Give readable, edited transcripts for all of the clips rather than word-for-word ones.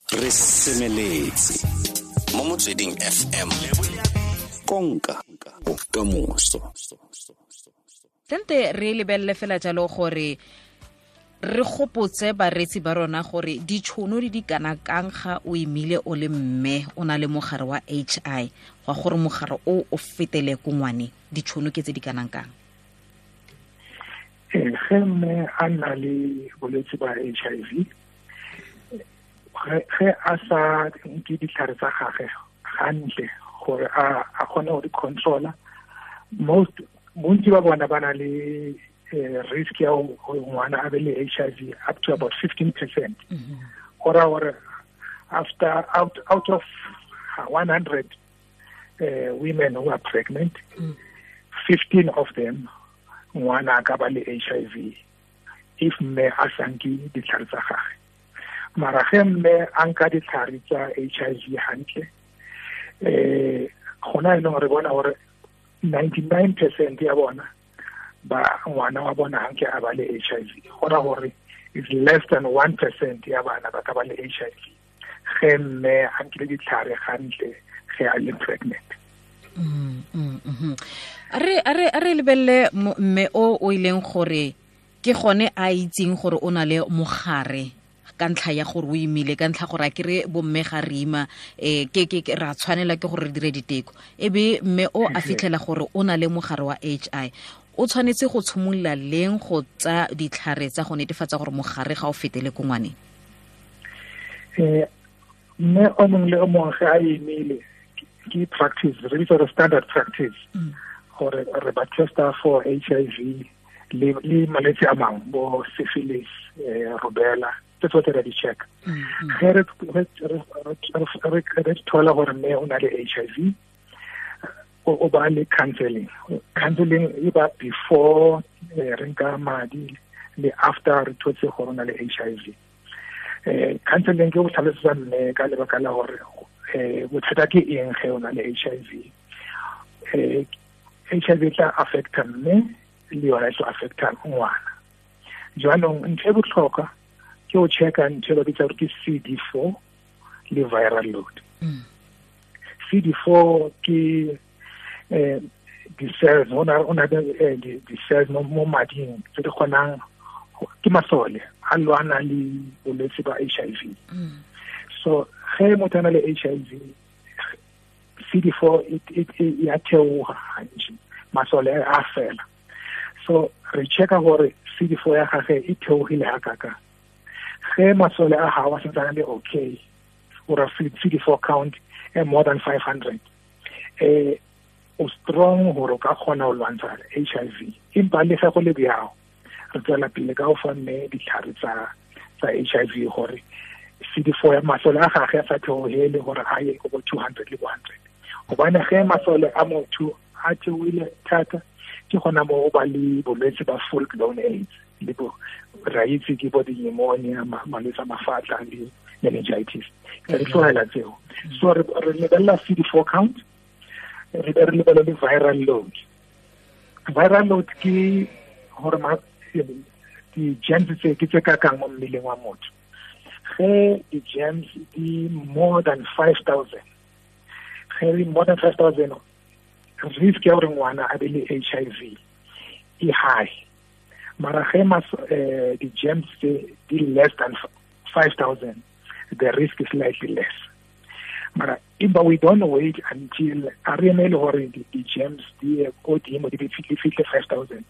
Re semeletse mo Motsweding FM, konka bokamoso. Sente re lebelele fela jalo gore re gopotse bareetsi ba rona gore ditšhono di di kana kang ga o imile o le mme o na le mogare wa HI, gwa gore mogare o o fetele ko ngwane, ditšhono ke tse di kanang kang? Ge mme a nna le bolwetse ba HIV, ge a sa nke ditlhare tsa gage gantle gore a kgone go di controla, most bontsi ba bona ba na le risk ya gore ngwana a be le HIV up to about 15%. Go raya gore after out of 100 women who are pregnant, 15 of them ngwana a ka ba le HIV if mme a sa nke ditlhare tsa gage. Mara ge mme a nka ditlhare tsa HIV hantle, gona e leng re bona gore 99% ya bona ba ngwana wa bona hanke a ba le HIV. Go raya gore it's less than 1% ya bana ba ka ba le HIV ge mme a nkile ditlhare gantle ge a le pregnant. A re lebelele mme o ileng gore ke gone a itseng gore o na le mogare ka ntlha ya gore o imile, ka ntlha gore a kere bomme ga re ima, ke ra tshwanela ke gore re dire diteko, e be mme o a fitlhela gore o na le mogare wa HI, o tshwanetse go tshimolola leng go tsa ditlhare tsa go netefatsa gore mogare ga o fetele ko ngwaneng? Mme o mongwe le o mongwe ge a imile, ke practice re bitsa gore standard practice gore re ba testa for HIV le malwetse a mangwe bo syphilis, rubella, tse tsotlhe ra di check. Ge re thola gore mme o na le HIV, o ba le counseling. Counseling e ba before re nka madi le after re thotse gore o na le HIV. Counseling ke go tlhalosetsa mme ka lebaka la gore bothata ke eng ge o na le HIV. HIV e tla affecta mme le yona e tlo affecta ngwana. Jaanong ntho e botlhokwa ke go checka ntho e ba bitsa gore ke CD4 le viral load. CD4 ke di-cells, o na le di-cells mo mading tse di kgonang, ke masole a lwana le bolwetse ba HIV. So ge motho a na le HIV, CD4 e ya theoga gantši, masole a fela. So re checka gore CD4 ya gage e theogile ga kaka. Ge masole a gago a santse a le okay, or a CD4 count e more than 500, o strong gore o ka kgona go lwantsha HIV. Empa le ge go le bjao, re tswela pele ka go fa mme ditlhare tsa HIV gore CD4 ya masole a gage a sa theogele gore a ye go bo 200 le bo 100, gobane ge masole a motho a theoile thata, ke gona mo o ba le bolwetse ba full blown AIDS, le bo ra itse ke bo di-pneumonia, malwetse a mafatla le meningitis, re tlogela tseo. So re lebelela CD4 count, re be re lebele le viral load. Viral load ke gore di-germs tse ke tse kakang mo mmeleng wa motho. Ge di-germs di more than 5000, ge di more than 5000, risk ya gore ngwana a be le HIV e high. Mara ge di-germs tse di less than 5000, the risk is slightly less. Mara empa we don't wait until a re emele gore di-germs di ye ko godimo, di fitlhe 5000.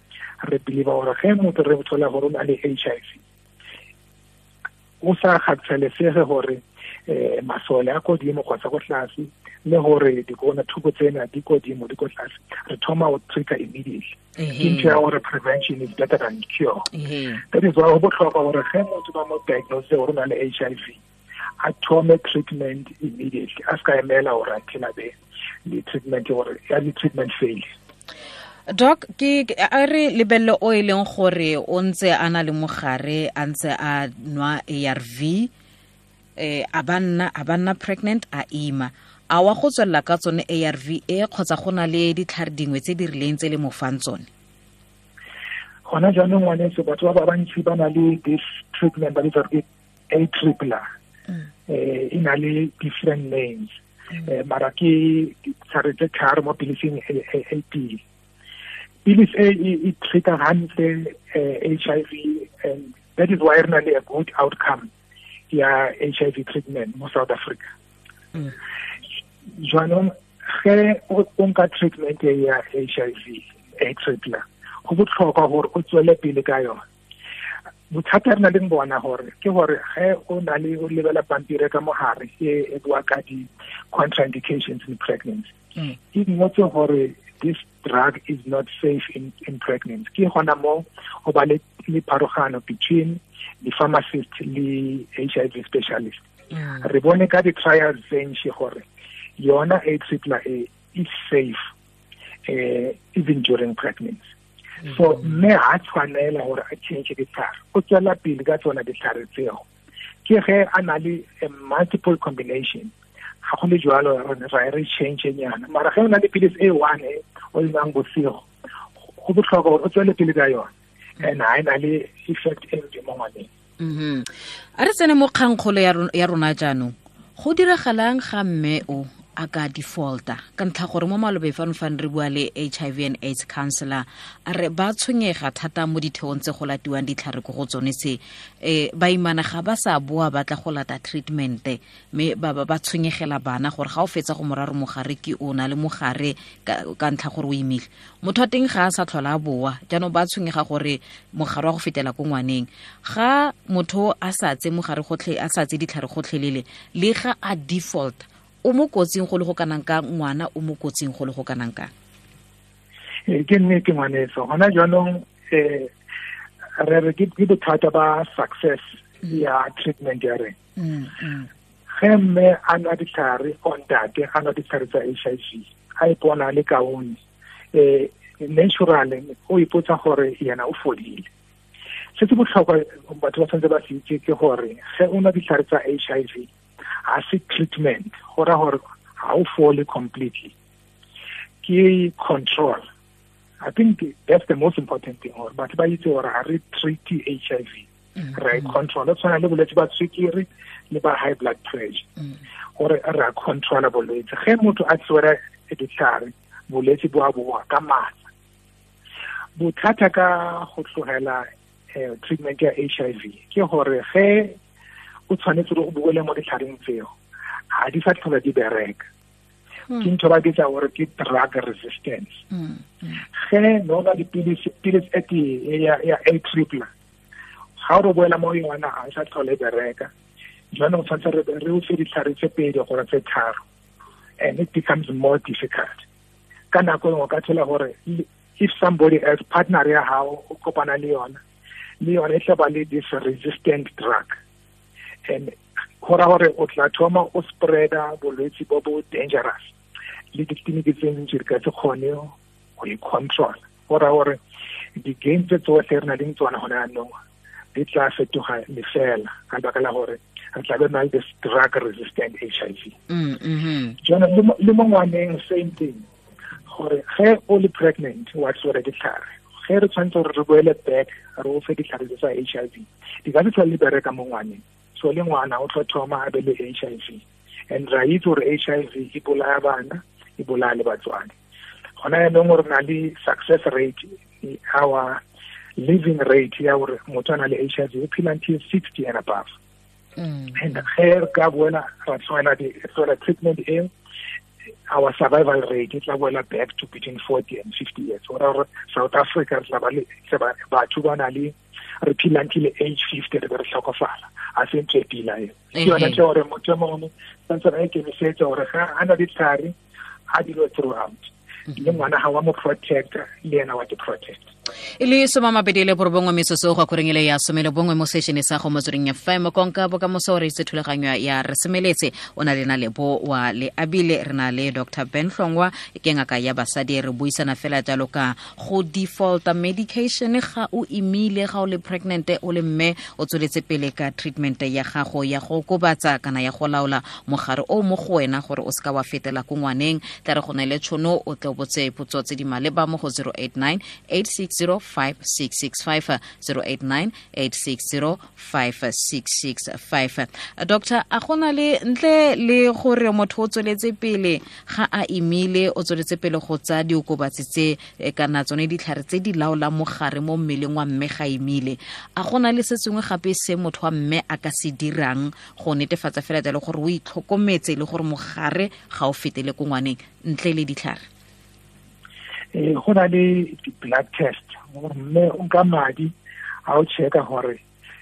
Re believe gore ge motho re thola gore o na le HIV, o sa kgathalesege gore masole a kodimo kgotsa ko tlase, le gore dikona thuko tsena di kodimo, di ko tlase, re thoma go treata immediately. Ke ntho ya gore prevention is better than cure. That is why go botlhokwa gore ge motho ba mo diagnose gore o na le HIV, a thome treatment immediately, a se ka emela gore until a be le treatment, gore ya le treatment fail. Doc, ke a re lebelele o e leng gore o ntse a na le mogare, a ntse a nwa ARV, a ba nna pregnant, a ima, a wa go tswelela ka tsone ARV e, kgotsa go na le ditlhare dingwe tse di rileng tse le mo fang tsone? Gona jaanong, ngwaneso, batho ba ba bantsi ba na le this treatment ba bitsa ke a tripler. E na le different names, mara ke ditlhare tse tharo mo pilising e tee. Pilisi e treat-a hantle HIV, and that is why re na le a good outcome ya HIV treatment mo South Africa. Jwanong ge o nka treatment ya HIV Atripla, go botlhokwa gore o tswele pele ka yona. Bothata re na leng bona gore ke gore ge o na le o lebela pampiri ka mogare e bua ka di-contraindications in pregnancy, e ngotse gore this drug is not safe in pregnancy. Ke gona mo go ba le pharogano between the pharmacist le HIV specialist. Re bone ka di-trials tse ntši gore yona Atripla e is safe even during pregnancy. So mme ha tshwanela gore a change ditlhare, o tswela pele ka tsona ditlhare tseo. Ke ge a na le multiple combination, ga go le jwalo ra re change nyana. Mara ge o na le pilisi e one e o e nwang bosigo, go botlhokwa gore o tswele pele ka yona, and ha e na le effect e mpe mo ngwaneng. A re tsene mo kgangkgolo ya rona jaanong. Go diragalang ga mme o a ka defaulta ka ntlha gore mo malobe fano fane re bua le HIV and AIDS counselor, a re ba tshwenyega thata mo ditheong tse go latiwang ditlhare ko go tsone tse, baimana ga ba sa boa ba tla go lata treatment, mme ba tshwenyegela bana gore ga o fetsa go moraro mogare ke o na le mogare ka ntlha gore o imile, motho wa teng ga a sa tlhola a boa, jaanong ba tshwenyega gore mogare wa go fetela ko ngwaneng. Ga motho a sa tse mogare gotlhe, a sa tse ditlhare gotlhelele, le ga a default, o mo kotsing go le go kanang ka ngwana, o mo kotsing go le go kanang ka? Ke nnete ngwaneso, gona jaanong re re ke bothata ba success ya treatment ya rena. Ge mme a nwa ditlhare, o ntate a nwa ditlhare tsa HIV, a ipona le kaone, naturally o ipotsa gore yena o fodile. Se se botlhokwa batho ba tshwanetse ba se itse ke gore ge o nwa ditlhare tsa HIV, ha se treatment, go ra gore ha o fole completely, ke control. I think that's the most important thing, gore batho ba itse gore ha re treat HIV, re control. Tshwana le bolwetse ba sukiri le ba high blood pressure, gore re a controla bolwetse. Ge motho a tswere ditlhare, bolwetse bo a boa ka matla. Bothata ka go tlogela treatment ya HIV ke gore ge o tshwanetse gore o boele mo ditlhareng tseo, ga di sa tlhola di bereka. Ke ntho ba bitsa gore ke drug resistance. Ge no ba dipilisi, pilisi e tee ya Atripla, ga o re boela mo yona ga e sa tlhole e bereka. Jaanong tshwanetse re o fe ditlhare tse pedi gore tse tharo, and it becomes more difficult. Ka nako engwe o ka thola gore if somebody else, partner ya hao, o kopana le yona, le yona e tla ba le this resistant drug, and go ra gore o tla thoma o spreada bolwetse bo bo dangerous, le ditleliniki tse ntsi re ka se kgone go e control. Go ra gore di-gain tse tsotlhe re na leng tsona gone jaanong di tla fetoga lefela ka lebaka la gore re tla be na le this drug resistant HIV. Jaanong le mo ngwaneng same thing, gore ge o le pregnant wa tswere ditlhare, ge re tshwanetse gore re boele back re o fe ditlhare tse tsa HIV, di ka se tlhole di bereka mo ngwaneng. So le ngwana o tlo thoma a be le HIV, and ra itse gore HIV e bolaya bana, e bolaya le batswadi. Gona jaanong re na le success rate, our living rate ya gore motho a na le HIV o phela until 60 and above. And ge re ka boela ra tlogela treatment eo, our survival rate e tla boela back to between 40 and 50 years. Go raya gore South Africa re tla ba le batho ba na le re phela until age 50 re be re tlhokofala. A se ntho e pila eo. Ke yona ntho gore motho mongwe santse a ikemisetsa gore ga a na ditlhare a dilo throughout, le ngwana ga wa mo protect, le ena wa te protect. E le 29 metsotso go akoreng ele ya 11 mo sešene sa go Motsweding FM. Konka bokamoso re itse thulaganyo ya re semeletse, o na le na le bo wa le abile, re na le Dr. Ben Hlongwa, ke ngaka ya basadi. Re buisana fela jalo ka go defaulta medication ga o imile, ga o le pregnant, o le mme o tsweletse pele ka treatment ya gago ya go okobatsa kana ya go laola mogare o mo go wena gore o seka wa fetela ko ngwaneng. Tla re go na le tšhono o tle o botse potso tse di maleba mo go 089 86 860 5665, 089 860 5665. Doctor, a gona le ntle le gore motho o tsweletse pele ga a imile, o tsweletse pele go tsa diokobatsi tse kana tsone ditlhare tse di laolang mogare mo mmeleng wa mme ga imile, a gona le se sengwe gape se motho wa mme a ka se dirang go netefatsa fela jalo gore o itlhokometse le gore mogare ga o fetele ko ngwaneng ntle le ditlhare? Go na le di-blood test, mme o nka madi a o checka gore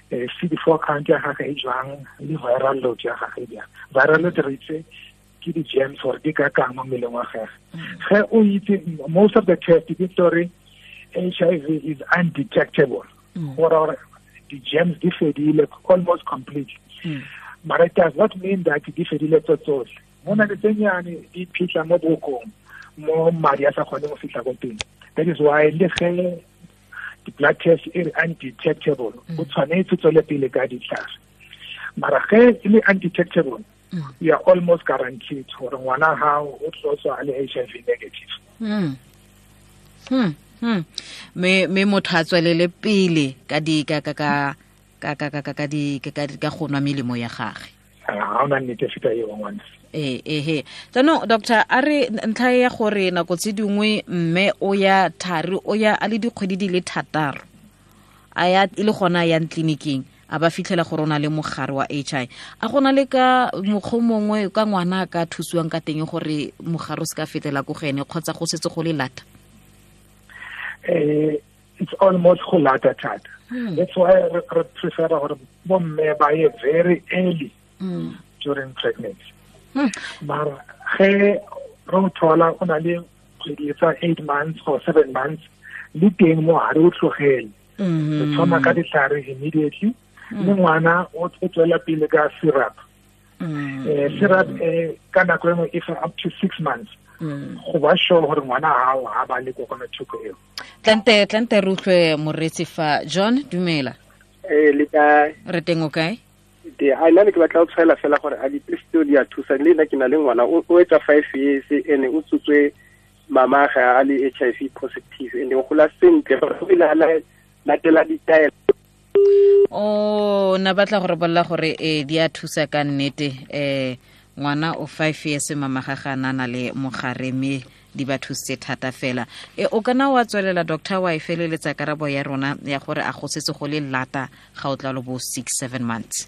CD4 count ya gagwe e jwang le viral load ya gagwe e jang. Viral load re itse ke di-germs gore di ka kang mo mmeleng wa gagwe. Ge o itse, most of the test di gore HIV is undetectable, gore di-germs di fedile almost completely. But it does not mean that di fedile tso tsotlhe. Go na le tse nyane di phitlha mo bokong, mo madi a sa kgone go fitlha ko teng. That is why le ge the blood test is undetectable, o tshwanetse tswele pele ka ditlhare. Mara ge e le undetectable, you are almost guaranteed gore ngwana hao o tlo tswa a le HIV negative. Me motho a tswelele pele ka di ka ka ka ka ka ka ka di ka go nwa melemo ya gagwe. Ha ona nnete feta eo ngwana. Ehe. Jaanong doctor, a re ntlha ya gore nako tse dingwe mme o ya thari, o ya a le dikgwedi di le 6, a ya e le gona a yang tleliniking, a ba fitlhela gore o na le mogare wa HIV. A gona le ka mokgwa mongwe ka ngwana a ka thusiwang ka teng gore mogare o se ka fetela ko go ene, kgotsa go setse go le lata? It's almost go lata thata. That's why re prefer gore bomme ba ye very early during pregnancy. Mara ge re thola o na le kgwedi tsa 8 months or 7 months, le teng mo ha re o tlogele. Re thoma ka ditlhare immediately, le ngwana o tswela pele ka syrup. Syrup ka nako engwe e fa up to 6 months. Go ba sure gore ngwana hao ha ba le kokwanatlhoko eo. Tlante re utlwe moreetsi fa. John, dumela. Le kae? Re teng, o kae? A nna ne ke batla go tshwaela fela gore a dipilisi tseo di a thusa. Le nna ke na le ngwana o etsa 5 years, ene o tsotswe mama ga a le HIV positive, ene o gola sentle, o ile a latela ditaelo. O na batla gore bolla gore di a thusa ka nnete. Ngwana o 5 years, mama ga ga na le mogare, mme di ba thusitse thata fela. O kana wa tswelela doctor, wa e feleletsa karabo ya rona ya gore a go setse go le lata ga o tla lo bo 6-7 months?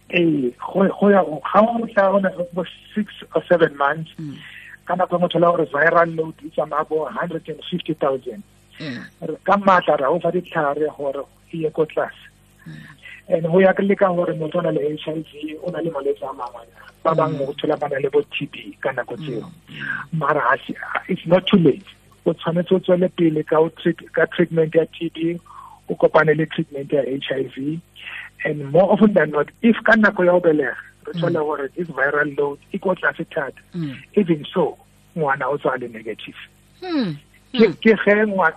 Go ya ga o tla ona bo 6 or 7 months, ka nako motho la gore viral load e tsamaya bo 150,000. Ka matla ra o fa ditlhare gore e ye ko tlase. And ho ya ka gore motho o na le HIV, o na le malwetse a mangwe, ba bangwe o thola ba na le bo TB ka nako tseo. Mara it's not too late. O tshwanetse o tswele pele ka treatment ya TB, o kopane le treatment ya HIV. And more often than not, if ka nako ya ho belega re thola gore this viral load e ko tlase thata, even so ngwana o tswa le negative. Ke ge ngwana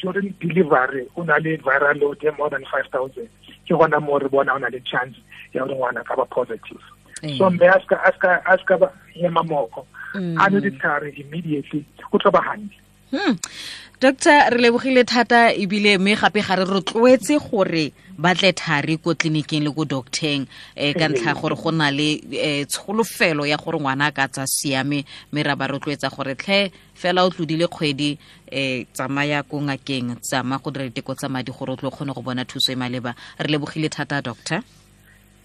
during delivery o na le viral load e more than 5,000, ke gona mo re bona o na le chance ya gore ngwana ka ba positive. So mme a ska ba ema moko, a nwe ditlhare immediately, o tlo ba hantle. Doctor, re lebogile thata ebile mme gape ga re rotloetse gore ba tle thari ko tleliniking le ko docteng, ka ntlha gore go na le tsholofelo ya gore ngwana a ka tsa siame, mme ra ba rotloetsa gore tlhe fela o tlodile kgwedi, tsamaya ko ngakeng, tsamaya go dira diteko tsa madi gore o tlo kgone go bona thuso e maleba. Re lebogile thata doctor.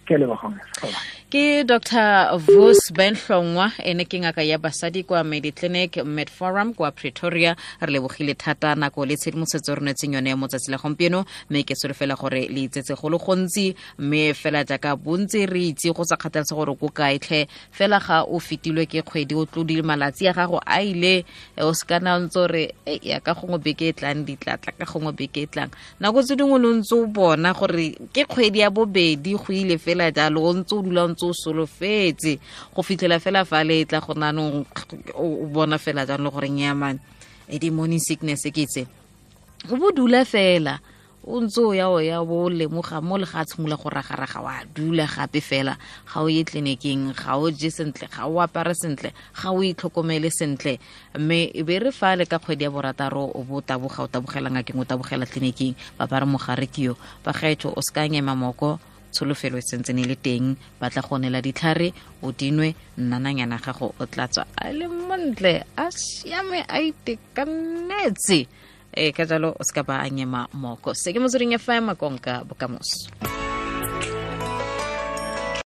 Ke Dr. Vus Benhlongwa, ene ke ngaka ya basadi kwa Mediclinic Medforum kwa Pretoria. Re lebogile thata nako le tshedimosetso re netseng yone mo tsatsi la gompieno, mme ke solofela gore le itsetse go le gontsi, mme fela jaaka bontsi re itse go sa kgathalesege gore ko kae tlhe, fela ga o fetilwe ke kgwedi, o tlodile malatsi a gago a ile, o se kana o ntse o re ya ka gongwe beke e tlang di tla tla, ka gongwe beke e tlang. Nako tse dingwe lo ntse o bona gore ke kgwedi ya bobedi go ile fela jalo, o ntse o dula o ntse o solofetse go fitlhela fela fa le tla go nanong o bona fela jalo gore nyamane e di morning sickness ke tse. O bo dula fela O ntse o ya o ya bo lemoga mo le ga a tshimolola go ragaraga, wa dula gape fela, ga o ye tleliniking, ga o je sentle, ga o apare sentle, ga o itlhokomele sentle. Mme e be re fa le ka kgwedi ya borataro o bo taboga, o tabogela ngakeng, o tabogela tleliniking, ba ba re mogare ke yo. Bagaetsho, o se ka nyema moko, tsholofelo e sentse ne le teng. Ba tla go neela ditlhare, o dinwe, nnananyana gago o tla tswa a le montle, a siame, a itekanetse. Ee, ka jalo o se ka ba a nyema moko. Se ke Motsweding FM, konka bokamoso.